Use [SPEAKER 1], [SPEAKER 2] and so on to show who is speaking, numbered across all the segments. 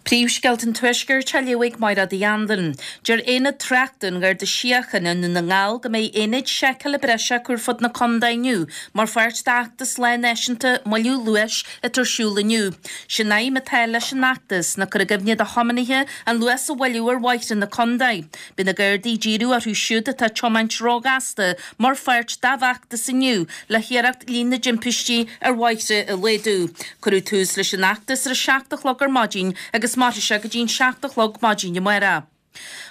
[SPEAKER 1] Príomhscéalta an Tuaiscirt á léamh ag Mairéad Uí Anluain. Deir Aonad Tráchta an Gharda Síochána i nDún na nGall go mbeidh aonaid seiceála breise acu ar fud na contae inniu mar pháirt d'fheachtas Lá Náisiúnta Moilliú Luais atá ar siúl inniu. Sé'n aidhm atá leis an fheachtas ná cur i gcuimhne do thiománaithe an luas a mhoilliú ar bhóithre na contae. Beidh na Gardaí ag díriú orthu siúd atá ag tiomáint róghasta mar pháirt dá bhfeachtas inniu le hiarracht líon na dtimpistí ar bhóithre a laghdú. Cuireadh tús leis an fheachtas ar a 7 a chlog ar maidin agus mairfidh sé go dtí an 7 a chlog maidin amárach.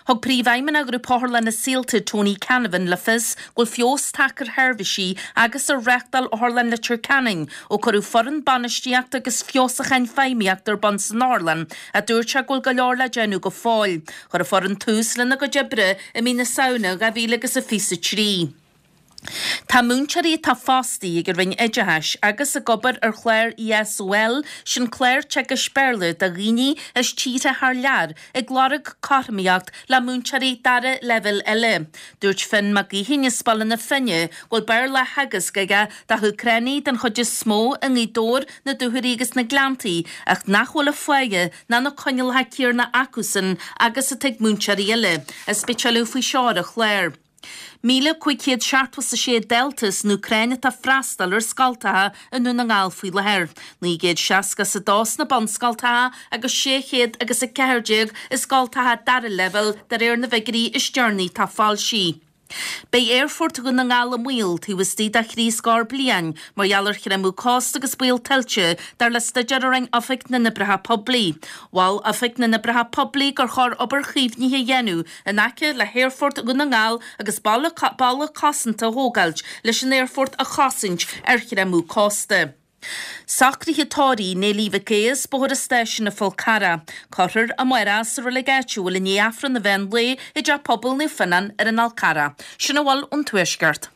[SPEAKER 1] Thug Príomhfheidhmeannach Ghrúpa Otharlanna Saolta, Tony Canavan, le fios go bhfuil feabhas tagtha ar sheirbhísí agus ar reáchtáil Otharlann Leitir Ceanainn ó cuireadh foireann bainistíochta agus feabhsúcháin feidhmíochta ar bun san otharlann ach dúirt sé go bhfuil go leor le déanamh go fóill. Chuir an foireann tús lena gcuid oibre i mí na Samhna 2023. Tá múinteoirí atá fostaithe ag an Roinn Oideachais agus ag obair ar chlár ESOL, sin clár teagaisc Béarla do dhaoine as tíortha thar lear, ag lorg cothromaíocht le múinteoirí dara leibhéal eile. Dúirt Finn Mac Gaoithín as Baile na Finne go bhfuil Béarla á theagasc aige do hÚcránaigh den chuid is mó i nGaoth Dobhair, na Dúchoraidh agus na Gleanntaí ach nach bhfuil an pháighe ná na coinníollacha céanna acusan agus atá ag múinteoirí eile, is beidh tuilleadh faoi seo ar an chlár. 1,576 dalta as an Úcráin atá ag freastal ar scoltacha i nDún na nGall faoi láthair, 962 sna bunscoltacha agus 600 agus 14 i scoltacha dara leibhéal de réir na bhfigiúirí is deireanaí atá foilsithe. Beidh Aerfort Dhún na nGall i mbaol taobh istigh de thrí scór bliain mar gheall ar chreimeadh cósta agus baol tuilte, dar le staidéar a rinne Oifig na nOibreacha Poiblí. Mhol Oifig na nOibreacha Poiblí gur chóir obair chaomhnaithe a dhéanamh in aice le hAerfort Dhún na nGall agus balla cosanta a thógáilt leis an aerfort a chosaint ar chreimeadh cósta. Socruithe tórraimh Néilí Mhic Aodha as Bóthar an Stáisiúin an Fhál Carrach. Cuirfear amárach sa reilig áitiúil i ndiaidh Aifreann an mheán lae i dTeach Pobail Naomh Fionnán ar an Fhál Carrach. Sin a bhfuil ón Tuaisceart.